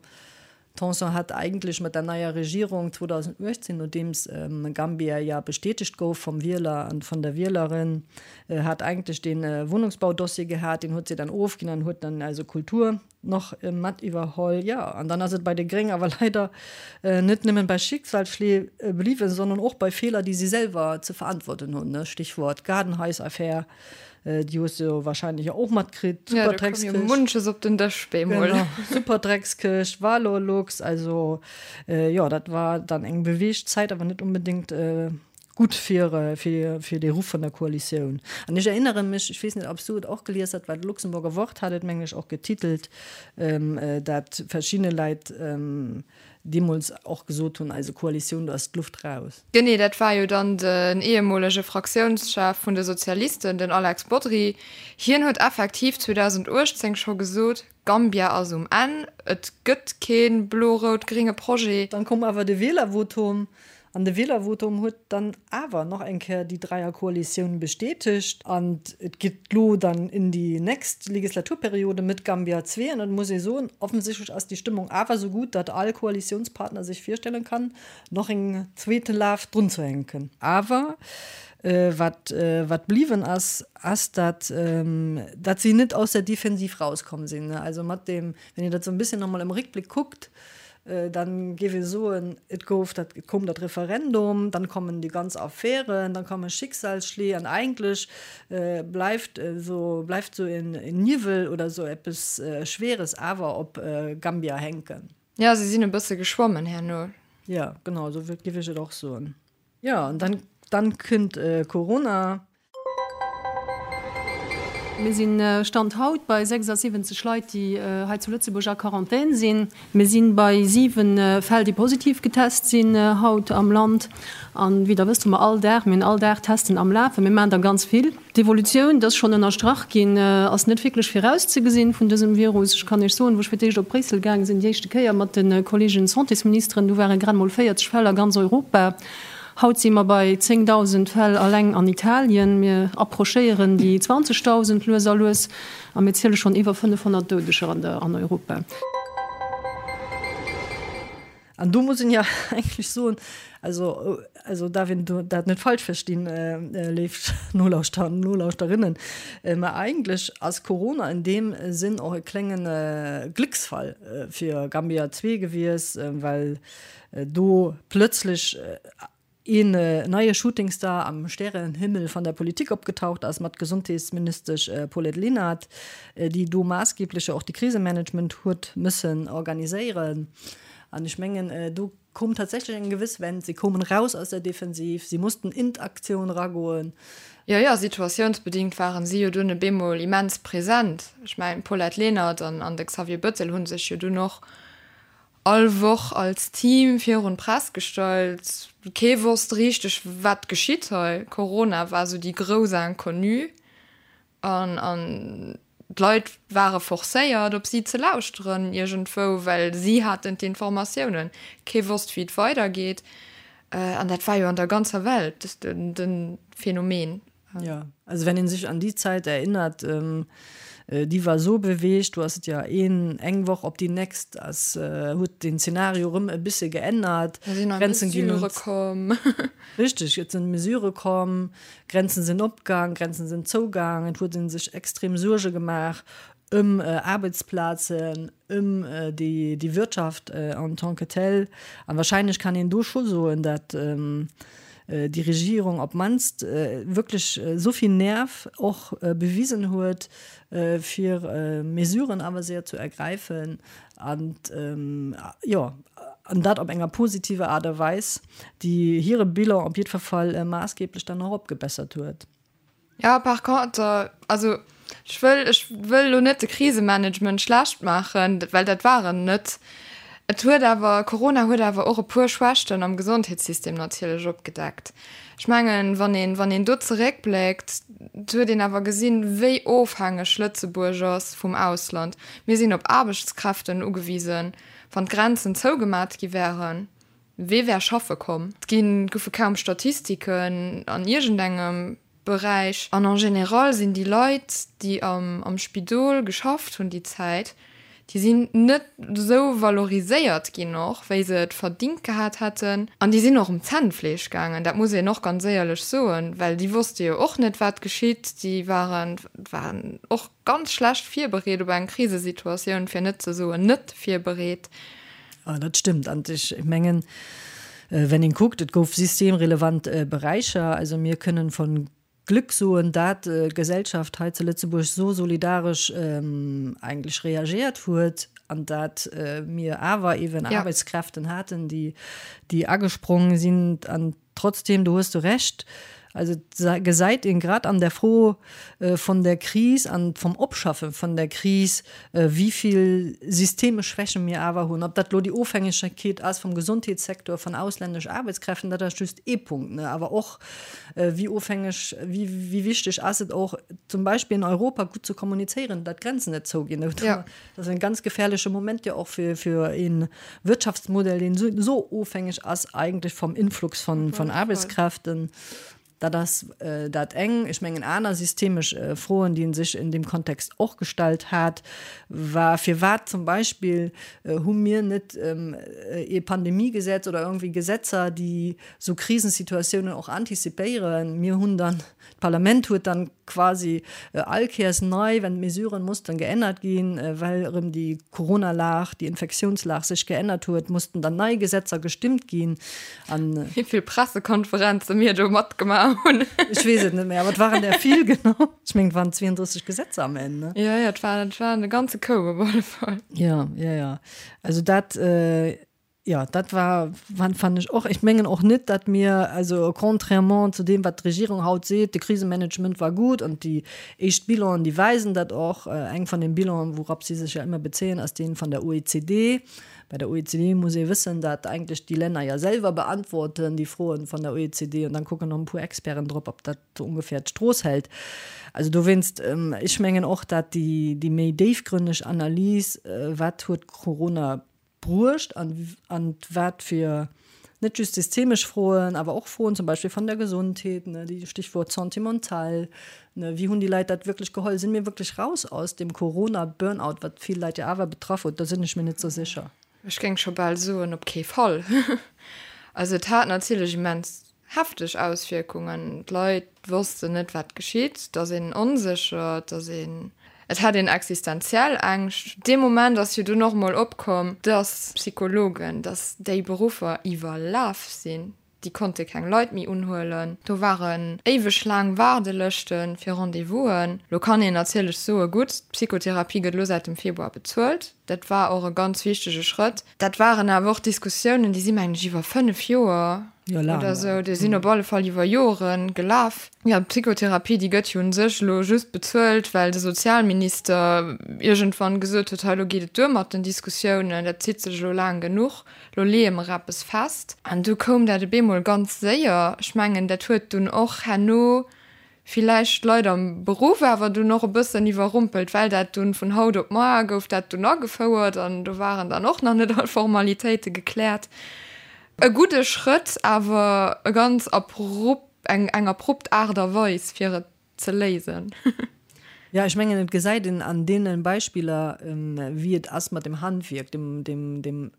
Tanson hat eigentlech mat der neier Regierung 2018, nodeems Gambia ja bestätegt gouf vom Wieler an von der Wielerin, hat eigentlech dee Wohnungsbaudossier gehat, deen huet si dann ofginn an huet dann also Kultur, Nach mat iwwerholl, jo. An dann ass et bei de Gréng awer leider net nëmmen bei Schicksalsschlee bliwwen, sondern och bei Feeler, déi si selwer ze verantworten hunn, Stichwort Gaardenhaisaffär, déi hues de jo wahrscheinlech och matkritt, Jo, do koum jo munches op den Dësch bemol. Genau, Superdreckskëscht, Valorlux, also jo, dat war dann eng beweegt Zäit, awer net onbedéngt Gutt fir fir dee Ruff vun der Koalitioun. An ech erinnere mech, ech weess net, ob s du et och gelies hat, well d'Luxemburger Wort hat et, mengen ech, och getitelt, dat verschidde Leit deemools och gesot hunn, eise Koalitioun, do ass d'Luft raus. Genee, dat war jo dann den ehemolege Fraktiounschef vun de Sozialisten, den Alex Bodry. Hien huet effektiv 2018 scho gesot, Gambia ass um Enn, et gëtt kee blo-rout-gringe Projet. Dann koum awer de Wielervotum, an de Wielervotum huet dann awer nach eng Kéier déi Dräierkoalitioun bestätegt. An et geet lo dann in déi nächst Legislaturperiode mit Gambia 2. An et muss ee soen, offensichtlech ass déi Stëmmung awer esou gutt, datt all Koalitiounspartner sech virstellen kann, nach en zweete Laf drunzehänken. Awer wat wat bliwwen ass, ass, datt datt si net aus der Defensiv rauskomm sinn. Also mat deem, wann een dat esou e bësschen nach emol am Réckbléck kuckt, dann géif ee soen, et gouf dat, et koum dat Referendum, dann kommen déi ganz Affären, dann komme Schicksalsschléi an eigentlech bleift esou, bleift esou en Niwwel oder esou eppes Schweres awer op Gambia hänken. Jo, si sinn e bësse geschwommen herno. Jo, genau, esou géif ech et och soen. Jo, an dann, dann kënnt Corona. Mir sinn Stand haut bei 76 Leit, déi hei zu Lëtzebuerg a Quarantän sinn. Mir si bei 7 Fäll, déi positiv getest sinn haut am Land. An wéi Der wësst, hu mer all Dag, mir hunn all Dag Testen am Lafen. Mir maachen der ganz vill. D'Evolutioun, dat ass schonn ënnerstrach ginn, ass net wierklech virauszegesinn vun dësem Virus. Ech kann Iech soen, wou ech fir d'éischt op Bréissel gaange sinn, déi éischte Kéier mat de Kolleegen Santésministeren, du ware grad mol 40 Fäll a ganz Europa. Haut si mer bei 10.000 Fäll alleng an Italien. Mir approchéieren déi 20.000 lues a lues a mir ziele schonn iwwer 500 Doudeger an Europa. An do muss een jo eigentlech soen, also, also darf een dat net falsch verstinn, léif Nolauschterer an Nolauschterinnen, mä eigentlech ass Corona in deem Sinn och e klénge Glécksfall fir Gambia 2 gewiess, well do plötzlech een neie Shootingstar am Stärenhimmel van der Politik opgetaucht ass mat Gesondheetsministesch Paulette Lenert, déi do maassgeblech jo och de Krisemanagement huet mëssen organiséieren. An ech mengen, do koum tatsächlech eng gewëss Wend. Si koumen raus aus der Defensiv, si mussten in d'Aktioun eragoen. Jo, jo, situatiounsbedingt waren si jo dunn e bemol immens present. Ech mengen, d'Paulette Lenert an de Xavier Bëttel hu sech jo dunn och all Woch als Team virun d'Press gestallt. Kee wosst richteg, wat geschitt hei. Corona war sou déi grouss Inconnue an an d'Leit ware forcéiert, op si ze lauschteren iergendwou, well si haten d'Informatiounen. Kee wosst, wéi et weidergeet. An dat war jo an der ganzer Welt de Phänomen. Ja, also wenn een sech an déi Zäit erinnert, déi war esou beweegt, du ass et ja een eng Woch op déi nächst ass huet den Zeenario erëm e bësse geännert. Da sinn nei Mesurë komm. Richteg, et sinn Mesurë komm, Grenzen sinn opgaang, Grenzen sinn zougaang, et huet ee sech extrem Suerge gemaach ëm Aarbechtsplazen, ëm déi Wirtschaft en tant que telle. An wahrscheinlech kann een do scho soen, datt déi Regierung op d'mannst wierklech esou vill Nerv och bewisen huet, fir Mesuren awer séier ze ergräifen an, jo, an dat op enger positiver Aart a Weis, déi hire Bilan op jiddwer Fall maassgeblech dann och opgebessert huet. Ja, par contre, also ech wëll, ech wëll elo net de Krisemanagement schlecht maachen, well dat war en net. Et huet awer, Corona huet awer och e puer Schwächten am Gesondheetssystem natierlech opgedeckt. Ech mengen, wann een, wann een do zeréckbléckt, huet een awer gesinn, wéi ofhängeg Lëtzebuerg ass vum Ausland. Mir sinn op Aarbechtskräften ugewisen. Wann d'Grenzen zougemat gi wären, wee wär schaffe komm? Et gi goufe kaum Statistiken an iergendengem Beräich. An en général sinn déi Leit, déi am Spidol geschafft hunn déi Zäit, déi sinn net esou valoriséiert ginn och, wéi se et verdingt gehat hätten. An déi sinn och um Zännfleesch gaangen, dat muss een och ganz éierlech soen, well déi wosste jo och net, wat geschitt. Déi waren, waren och ganz schlecht virbereet op eng Krisesituatioun, fir net ze soen net virbereet. Jo, dat stëmmt. An ech mengen, wenn een kuckt, et gouf systemrelevant Beräicher. Also mir kënnen von Glück soen, dat d'Gesellschaft hei zu Lëtzebuerg esou solidaresch eigentlech reagiert huet an dat mir awer eeben Aarbechtskräften haten, déi déi agesprong sinn. An Trotzdem, do hues du Recht, also et gesäit een grad an der Fro von der Kris an vom Opschaffe von der Kris, wéivill systemesch Schwächen mir awer hunn. Ob dat elo déi Ofhängegkeet ass vum Gesondheetssektor, von ausländesch Aarbechtskräften, dat ass just ee Punkt, ne, awer och wéi ofhängeg, wéi wichteg ass et och zum Beispill in Europa gutt ze kommunizéieren, datt d'Grenzen net zouginn. Dat ass en ganz gefährleche Moment jo och fir, fir een Wirtschaftsmodell, deen esou, esou ofhängeg ass eigentlech vom Influx von, von Arbeitskräften. Dat ass dat eng. Ech mengen, aner systemesch Froen, déi ee sech in deem Kontext och gestallt hat, war, Firwat zum Beispill hu mir net ee Pandemiegesetz oder irgendwie Gesetzer, déi esou Krisensituatiounen och antizipéieren? Mir hunn dann D'Parlament huet dann quasi all Kéiers nei, wenn d'Mesuren mussten geännert ginn, well erëm déi Corona-Lag, déi Infektiounslag sech geännert huet, mussten dann nei Gesetzer gestimmt ginn. An. Wéi vill Pressekonferenze mir do matgemaach hunn. Ech weess et net méi, awer et waren der vill, genau. Ech mengen, et waren 32 Gesetzer am Enn, ne? Jo, jo, et war, et war e ganze Koup op alle Fall. Jo, jo, jo. Also dat. Jo, dat war, fannen ech och. Ech mengen och net, datt mir, also contrairement zu deem, wat d'Regierung haut seet, de Krisemanagement war gutt an déi éischt Bilanen, déi weisen dat och. Eng vun den Bilanen, wourop si sech jo ëmmer bezéien, ass dee vun der OECD. Bei der OECD muss ee wëssen, datt eigentlech déi Länner jo selwer beantworten déi Froen vun der OECD an dann kucken nach e puer Experten drop, ob dat sou ongeféier d'Strooss hält. Also dowéinst, ech mengen och, datt déi méi déifgrënneg Analys, wat huet Corona bruecht an an wat fir net just systemesch Froen, awer och Froen zum Beispill van der Gesondheet, ne, déi Stichwort Santé mentale, ne, wéi hunn déi Leit dat wierklech geholl, sinn mir wierklech raus aus dem Corona-Burnout, wat vill Leit jo awer betraff huet, do sinn ech mir net sou sécher. Ech géing scho bal soen, op kee Fall. Also et hat natierlech immens Hefteg Auswierkungen. D'Leit wossten net, wat geschitt. Et ass een onsécher, et ass een, et hat een existenziell Ängscht. Dee Moment ass jo dunn och emol opkomm, dass Psychologen, dass déi Beruffer iwwerlaf sinn. Déi konnte keng Leit méi unhuelen. Do waren éiweg laang Waardelëschte fir Rendez-vousen. Lo kann een natierlech soen, gutt, d'Psychotherapie gëtt elo säit dem Februar bezuelt. Dat war och e ganz wichtege Schrëtt. Dat waren awer och Diskussiounen, déi si mengen ech iwwer 5 Joer oder esou, déi sinn op alle Fall iwwer Jore gelaf. Jo, d'Psychotherapie, déi gëtt jo u sech elo just bezuelt, well de Sozialminister iergendwann gesot huet, hei elo geet et duer mat den Diskussiounen, dat zitt sech elo laang genuch, elo leeë mer eppes fest. An du koum dat op eemol ganz séier. Ech mengen, dat huet dunn och herno villäicht d'Leit am Beruff awer dunn och e bëssen iwwerrumpelt, well dat dunn vun haut op mar gouf dat dunn agefouert an do waren dann och nach net all Formalitéite gekläert. E gudde Schrëtt, awer e ganz abrupt, eng eng abrupt Aart a Weis fir et ze léisen. Jo, ech mengen, et gesäit een an deene Beispiller, wéi et ass mat dem Handwierk, dem, dem, dem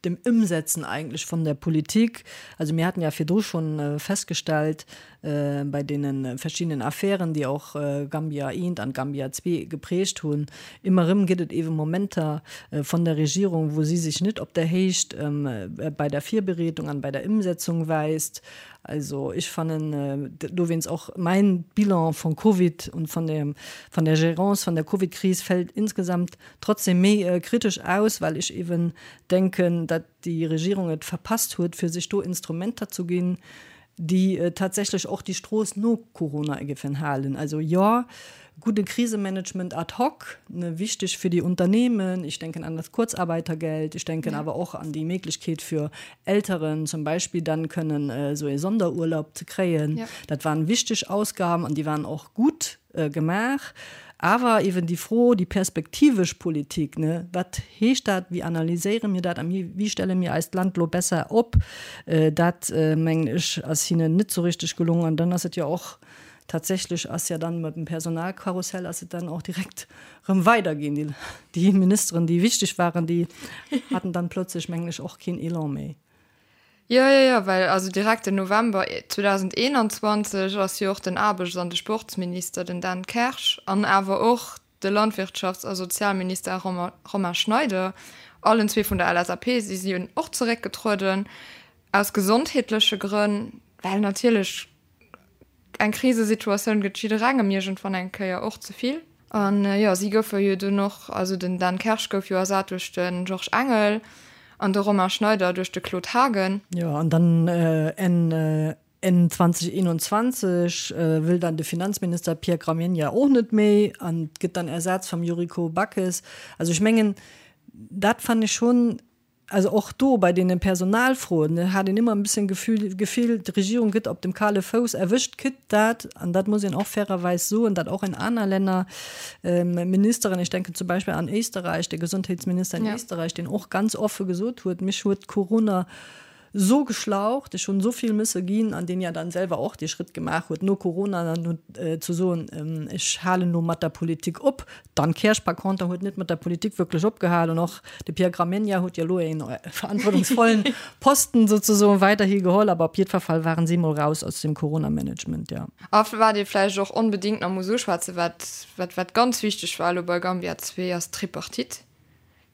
dem Ëmsetzen eigentlech von der Politik. Also mir haten ja virdru schonn festgestellt bei deene verschiddenen Affären, déi och Gambia I an Gambia ii geprägt hunn, ëmmer erëm gëtt et eebe Momenter von der Regierung, wou si sech net op der Héicht bei der Virbereedung an bei der Ëmsetzung weist. Also ech fannen dowéinst och mäin Bilan von Covid und von der, von der Gérance von der Covid-Kris fällt insgesamt trotzdem méi kritesch aus, well ech eeben denken, datt déi Regierung et verpasst huet, fir sech do Instrumenter zu ginn, déi tatsächlech och déi Strooss no Corona géifen halen. Also jo, gudde Krisemanagement ad hoc, ne, wichteg fir déi Unternehmen, ich denken an das Kurzarbeitergeld, ich denken awer och an déi Méiglechkeet fir Elteren zum Beispill dann kënnen esou ee Sonderurlaub ze kréien. Dat waren wichteg Ausgaben an déi waren och gutt gemaach. Awer eben déi Fro, déi perspektivesch Politik, ne, wat heescht dat, wéi analyséiere mir dat a wéi stelle mir eist Land elo besser op, dat mengen ech ass hinnen net esou richteg gelongen. An dann ass et jo och Tatsächlech ass ja dann mat dem Personalkarussell ass et dann och direkt rëm weiderginn. Déi, déi Ministeren, déi wichteg waren, déi haten dann plötzlech, mengen ech, och keen Elan méi. Jo, jo, jo, well also direkt den November 2021 ass jo och den Aarbechts an de Sportsminister, den Dan Kersch, an awer och de Landwirtschafts a Sozialminister Romain Schneider, allen zwee vun der LSAP, si sinn och zeréckgetrueden aus gesondheetleche Grënn, well natierlech Eng Krisesituatioun gëtt jidderengem iergendwann eng Kéier och ze vill. An jo, si goufe jo dunn och, also den Dan Kersch gouf jo ersat duerch de Georges Engel an de Romain Schneider duerch de Claude Haagen. Jo, an dann Enn Enn 2021 wëll dann de Finanzminister Pierre Gramegna och net méi an gëtt dann ersat vum Yuriko Backes. Also ech mengen, dat fannen ech schonn Also och do bei deene Personalfroen hat een ëmmer e bësschen Gefühl, Gefill, d'Regierung gëtt op dem kale Fouss erwëscht, kritt dat, an dat muss een och fairerweis soen, dat och in aner Länner Ministeren, ich denke zum Beispill an Éisterreich, de Gesundheitsminister in Éisterreich, deen och ganz offe gesot huet, Mich huet Corona sou geschlaucht, ech hunn esou vill mësse ginn, an deen ja dann selwer och dee Schrëtt gemaach huet no Corona dann huet ze soen, ech halen elo mat der Politik op. D'Anne Kersch par conter huet net mat der Politik wierklech opgehal an och de Pierre Gramegna huet jo elo een verantwortungsvollen Posten souzesoen weiderhi geholl, awer op jiddwer Fall waren si mol raus aus dem Corona-Management, jo. A wat ee vläicht och onbedéngt nach muss uschwätzen, wat wat wat ganz wichteg war elo bei Gambia 2, ass d'Tripartite.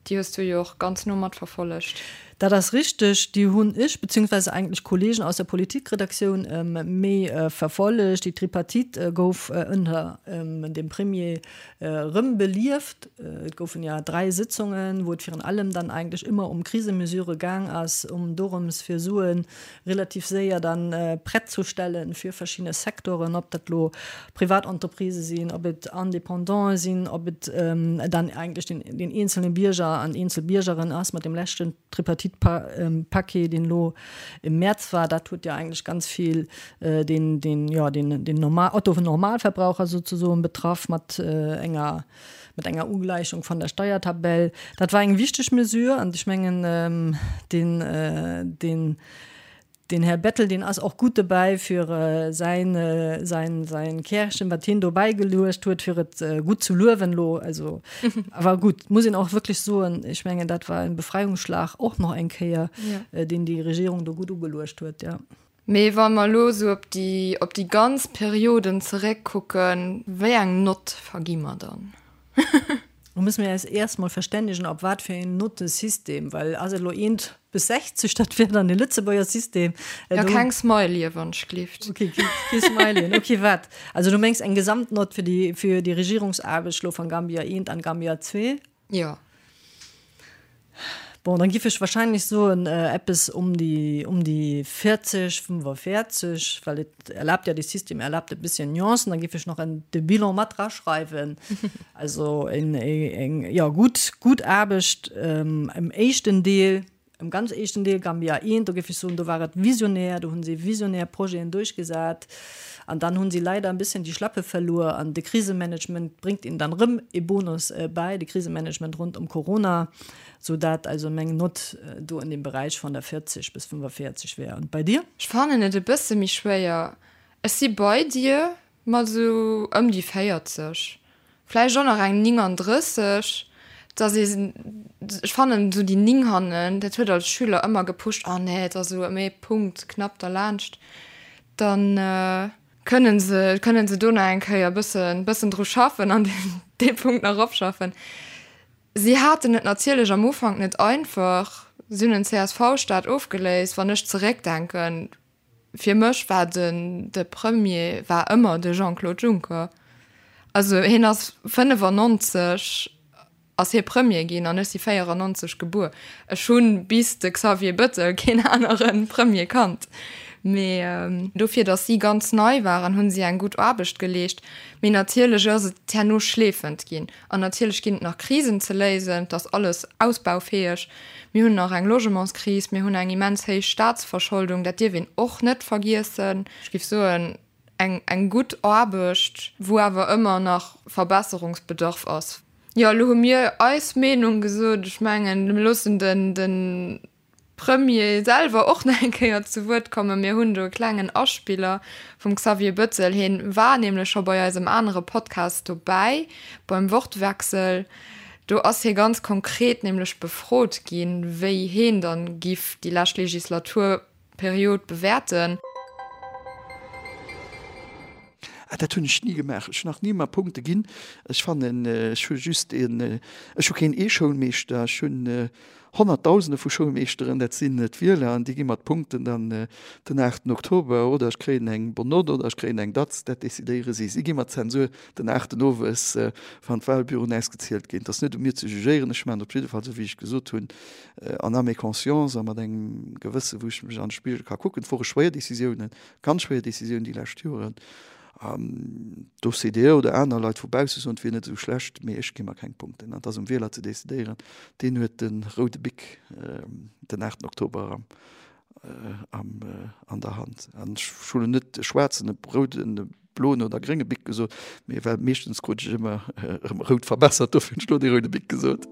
Déi hues du jo och ganz no matverfollegt. Dat ass richteg, déi hunn ech, beziehungsweise eigentlech Kollegen aus der Politikredaktioun méi verfollegt. Déi Tripartite gouf ënner dem Premier erëm belieft. Et goufen ja 3 Sitzungen, wou et virun allem dann eigentlech ëmmer ëm Krisemesure gaang ass, ëm dorëms fir Suen relativ séier dann prett zu stellen fir verschidde Secteuren, ob dat elo Privatentreprisë sinn, ob et Indépendantë sinn, ob et dann eigentlech den, den eenzelne Bierger an eenzel Biergerin ass. Mat dem leschten Tripartite-Paquet, deen elo im Mäerz war, dat huet jo eigentlech ganz vill den, den, jo, den, den Normal, Otto-Normalverbraucher souzesoen betraff mat enger, mat enger Ugläichung von der Steiertabell. Dat war eng wichteg Mesure an ech mengen, den, den, den Här Bettel, deen ass och gutt dobäi fir säin, säin, säin Kärchen, wat hien do bäigeluecht huet, fir et gutt ze luewen elo. Also, awer gutt, muss een och wierklech soen, ech mengen, dat war en Befreiungsschlag och nach eng Kéier, deen déi Regierung do gutt ugeluecht huet, jo. Mee wa mer elo esou op déi, op déi ganz Perioden zeréckkucken, wéi eng Nott vergi mer dann? Do musse mir eis erst mol verstännegen, op wat fir een Nottesystem, well ass et elo eent bis 60, dat wär dann de Lëtzebuerger System. Jo, keng Smileyen, wann ech gleeft. Okay, kee Smileyen. Okay, wat? Also du mengs eng Gesamtnott fir déi, fir déi Regierungsaarbecht elo van Gambia eent an Gambia zwee? Jo. Bon, dann giff ech wahrscheinlech soen eppes um déi um déi 40, 45, well et erlaabt ja, de System erlaabt e bisschen Nuancen. Dann giff ech nach en de Bilan mat draschreiwen. Also en eng jo gutt gutt Aarbecht im éischten Deel, im ganz éischten Deel Gambia I, do giff ech soen, do war et visionär, do hunn si visionär Projeten duerchgesat. An dann hunn si leider en bisschen déi Schlappe verluer an de Krisemanagement bréngt ihnen dann rëm e Bonus bäi, de Krisemanagement rond ëm Corona, sou dat also meng Nott do an deem Beräich van der 40 bis 45 wär. Und bei dir? Ech fannen et e bësse méi schwéier. Ech si bei dir mat esou ëm déi 40. Vläicht och nach eng 39, dass ee, ech fannen esou déi 9 hannen, dat huet als Schüler ëmmer gepusht, oh nee, et ass esou ëm ee Punkt knapp derlaanscht, dann kënnen se, kënnen se do nach eng Kéier e bëssen, bëssen dru schaffen an dee Punkt nach eropschaffen. Si haten et natierlech am Ufank net einfach, si hunn en CSV-Staat ofgeléist, wann ech zeréckdenken, Fir mech war den de Premier war ëmmer de Jean-Claude Juncker. Also hien ass 95 ass hie Premier ginn an ech si 94 gebuer. Ech hu bis de Xavier Bëttel keen anere Premier kannt. Mee dofir, datt si ganz nei waren, hu si eng gutt Aarbecht geleescht. Mee natierlech ass et herno schleefend ginn. An natierlech ginn et nach Krisen ze léisen. Et ass alles ausbaufäeg. Mir hunn nach eng Logementskris, mir hunn eng immens héich Staatsverscholdung, dat dierf een och net vergiessen. Ech géif soen, eng, eng gutt Aarbecht, wou awer ëmmer nach Verbesserungsbedarf ass. Jo, elo hu mir eis Meenung gesot. Ech mengen, mir loossen den, de Premier selwer och nach eng Kéier zu Wuert kommen. Mir hunn do e klengen Aspiller vum Xavier Bettel. Hien war nämlech scho bei eisem anere Podcast dobäi, beim Wortwechsel. Do ass hie ganz konkret nämlech befrot ginn, wéi heen dann giff déi lescht Legislaturperiod bewäerten. Ah, dat hunn ech ni gemaach. Ech hunn nach ni mer Punkte ginn. Ech fannen, ech hu just een, ech hu keen ee Schoulmeeschter, ech hunn Honnertdausende vu Schoulmeeschteren, dat sinn d'Wieler, an déi gi mer d'Punkten dann den aachten Oktober, oder ech kréien eng Bonne note oder ech kréien eng Datz, dat decidéiere si. Si gi mer d'Zensur den aachten owes, wann d'Wahlbüroen ausgezielt ginn. Et ass net u mir ze jugéieren, ech maachen et op jidde Fall, esou wéi ech gesot hunn, en âme et conscience a mat engem Gewësse wou ech mech an de Spigel ka kucken. Et wore schwéier Décisiounen, ganz schwéier Décisiounen déi lescht Joren. D'OCDE oder aner Leit vu bausse soen, et wier net esou schlecht, mee ech gi mer keng Punkten. An et ass um Wieler ze decidéieren. Deen huet de roude Bic den 8 Oktober an der Hand. An ech hu lo net e schwaarzen, e rouden, e bloen oder grénge Bic gesot, mee well meeschtens krut ech ëmmer erëm rout verbessert, dofir hunn ech lo dee roude Bic gesot.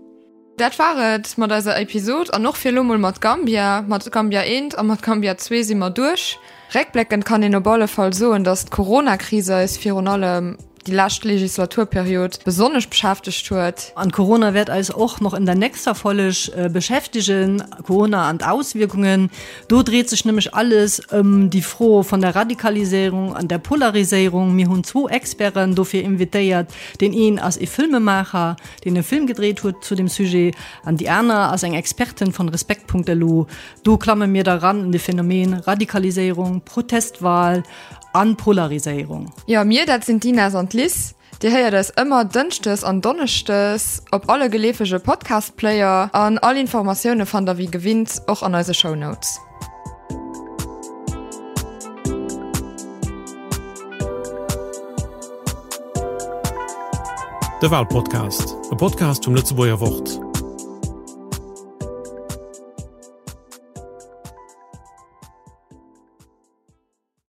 Dat war et mat eiser Episod an och fir elo mol mat Gambia. Mat Gambia eent a mat Gambia zwee si mer duerch. Réckbléckend kann een op alle Fall soen, datt d'Corona-Kris eis virun allem déi lescht Legislaturperiod besonnesch beschäftegt huet. An Corona wäert eis och noch in der nächster Folg beschäftegen, Corona an d'Auswierkungen. Do dreet sech nämlech alles ëm déi Fro von der Radikaliséierung an der Polariséierung. Mir hunn zwou Experten dofir invitéiert. Deen een ass ee Filmemaacher, deen e Film gedréit huet zu dem Sujet, an déi aner ass eng Expertin von Respekt.lu. Do klamme mir da ran in de Phänomen Radikaliséierung, Protestwahl an Polariséierung. Jo, mir, dat sinn d'Ines an d'Liz. Dir héiert eis ëmmer dënschdes an donneschdes op alle geleefege Podcast-Player an all Informatioune fannt der wéi gewinnt och an eise Shownotes. De Walpodcast, e Podcast vum Lëtzebuerger Wort.